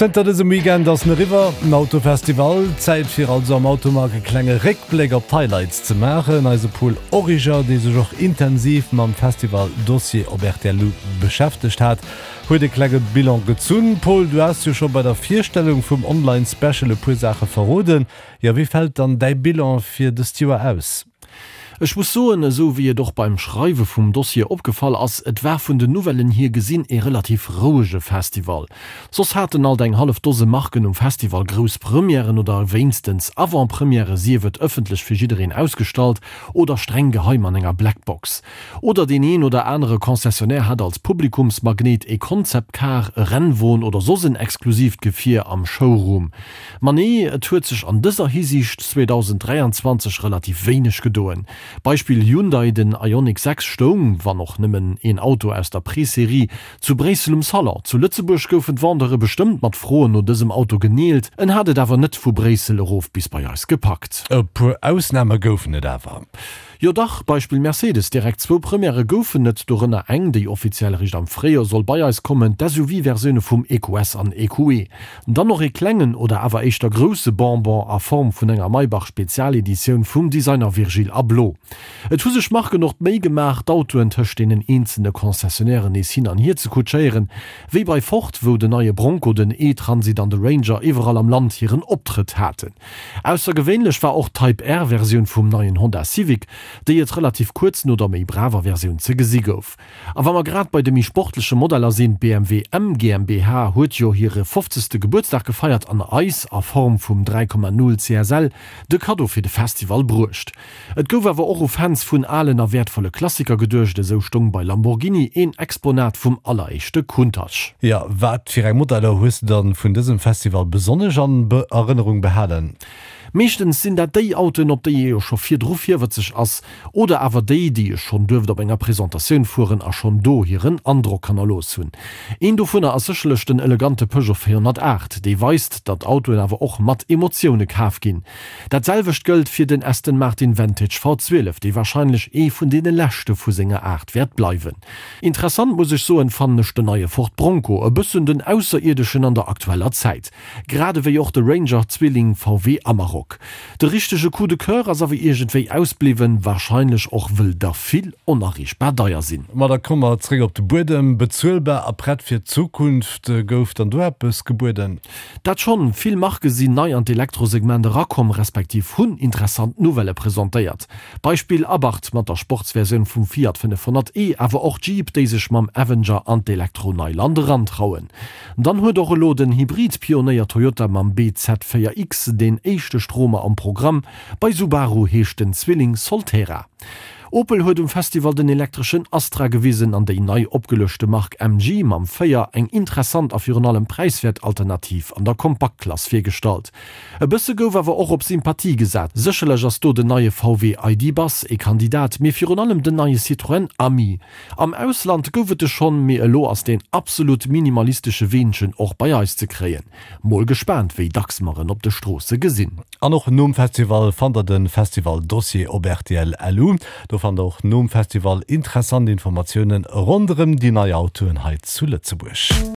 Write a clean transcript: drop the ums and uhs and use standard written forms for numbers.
Zënter dësem Weekend ass en eriwwer, den Autofestival. Zäit fir also am Automag e klenge Réckbléck op d'Highlights ze maachen. Eise Paul Origer, dee sech och intensiv mam Festival-Dossier op rtl beschäftegt hat, huet e klenge Bilan gezunn. Paul, du has jo scho bei der Virstellung vum Online-Special e puer Saache verroden. Jo, wéi fält dann däi Bilan fir dëst Joer aus? Ech muss soen, esou wéi et och beim Schreiwe vum Dossier opgefall ass, et war vun den Nouvellen hier gesinn ee relativ rouege Festival. Soss haten alt eng hallef Dose Marken um Festival grouss Premièren oder wéinstens Avant-Premièrë, sief et ëffentlech fir jiddereen ausgestallt oder streng geheim an enger Blackbox. Oder deen een oder anere Concessionnaire hat als Publikumsmagnet ee Concept Car, e Rennwon oder soss en exklusiivt Gefier am Showroom. Ma nee, et huet sech an dëser Hisiicht 2023 relativ wéineg gedoen. Beispill Hyundai, Den Ioniq 6 stoung, wann och nëmmen een Auto aus der Présérie, zu Bréissel um Salon. Zu Lëtzebuerg goufen d'Vendeure bestëmmt mat Froen no dësem Auto geneelt, en hat et awer net vu Bréissel erof bis bei eis gepackt. E puer Ausname goufen et awer. Jo dach, Beispill Mercedes, direkt zwou Premièrë goufen et, dorënner eng, déi offiziell eréischt am Fréijoer soll bei eis kommen, d'SUV-Versioune vum EQS an EQE. Dann och ee klengen, oder awer éischter grousse Bonbon a Form vun enger Maybach-Spezialeditioun vum Designer Virgil Abloh. Et hu sech Marken och d'Méi gemaach, d'Autoen tëscht deenen eenzele Concessionnairen nees hin an hier ze kutschéieren, wéi bei Ford, wou den neie Bronco, den E-Transit an de Ranger iwwerall am Land hiren Optrëtt haten. Aussergewéinlech war och d'Type R-Versioun vum neien Honda Civic, déi et relativ kuerz no der méi braver Versioun ze gesi gouf. A wa mer grad bei de méi sportleche Modeller sinn, D'BMW M GmbH huet jo hire fofzegste Gebuertsdag gefeiert an eis a Form vum 3,0 CSL de Kaddo fir de Festival bruecht. Et gouf awer och u Fans vun alen a wäertvolle Klassiker geduecht, esou stoung bei Lamborghini een Exponat vum alleréischte Countach. Jo, wat fir eng Modeller hues de dann vun dësem Festival besonnesch an Erënnerung behalen? Meeschtens sinn dat déi Autoen, op déi ee jo scho virdru virwëtzeg ass, oder awer déi, déi ech schonn duerft op enger Presentatioun fueren a schonn do hiren Androck hannerlooss hunn. Een dovunner ass sécherlech den elegante Peugeot 408, dee weist, datt Autoen awer och mat Emotioune kaf ginn. Dat selwecht gëllt fir den Aston Martin Vantage V12, dee warscheinlech ee vun deene leschte vu senger Aart wäert bleiwen. Interessant, muss ech soen, fannen ech den neie Ford Bronco, e bëssen den Ausserierdeschen an der aktueller Zäit. Grad ewéi och de Ranger-Zwilling VW Amarok. De richtege Coup de Coeur ass awer iergendwéi ausbliwwen, warscheinlech och wëll der vill onerreechbar deier sinn. Ma da komme mer zréck op de Buedem. Bezuelbar a prett fir d'Zukunft, gouf dann do eppes gebueden? Dat schonn, vill Marke sinn nei an d'Elektrosegment erakomm, respektiv hunn interessant Nouvellë presentéiert. Beispill Abarth mat der Sportsversioun vum Fiat 500 e, awer och Jeep, déi sech mam Avenger an d'Elektro-Neiland erantrauen. Dann huet och elo den Hybrid-Pionéier Toyota mam bZ4X deen éischte Stromer am Programm. Bei Subaru heescht den Zwilling Solterra. Opel huet um Festival den elektreschen Astra gewisen an déi nei opgeluechte Mark MG mam 4 eng interessant a virun allem präiswäert Alternativ an der Kompaktklass virgestallt. E bësse gouf awer och op Sympathie gesat, sécherlech ass do den neie VW ID. Buzz ee Kandidat, mee virun allem den neie Citroën Ami. Am Ausland gouf et e schonn, mee elo ass deen absolut minimalistesche Weenchen och bei eis ze kréien. Mol gespaant wéi dacks mer en op de Stroosse gesinn. An och nom Festival fannt der den Festival Dossier op rtl LU. Do fannt der och nom Festival interessant Informatiounen ronderem déi nei Autoen hei zu Lëtzebuerg.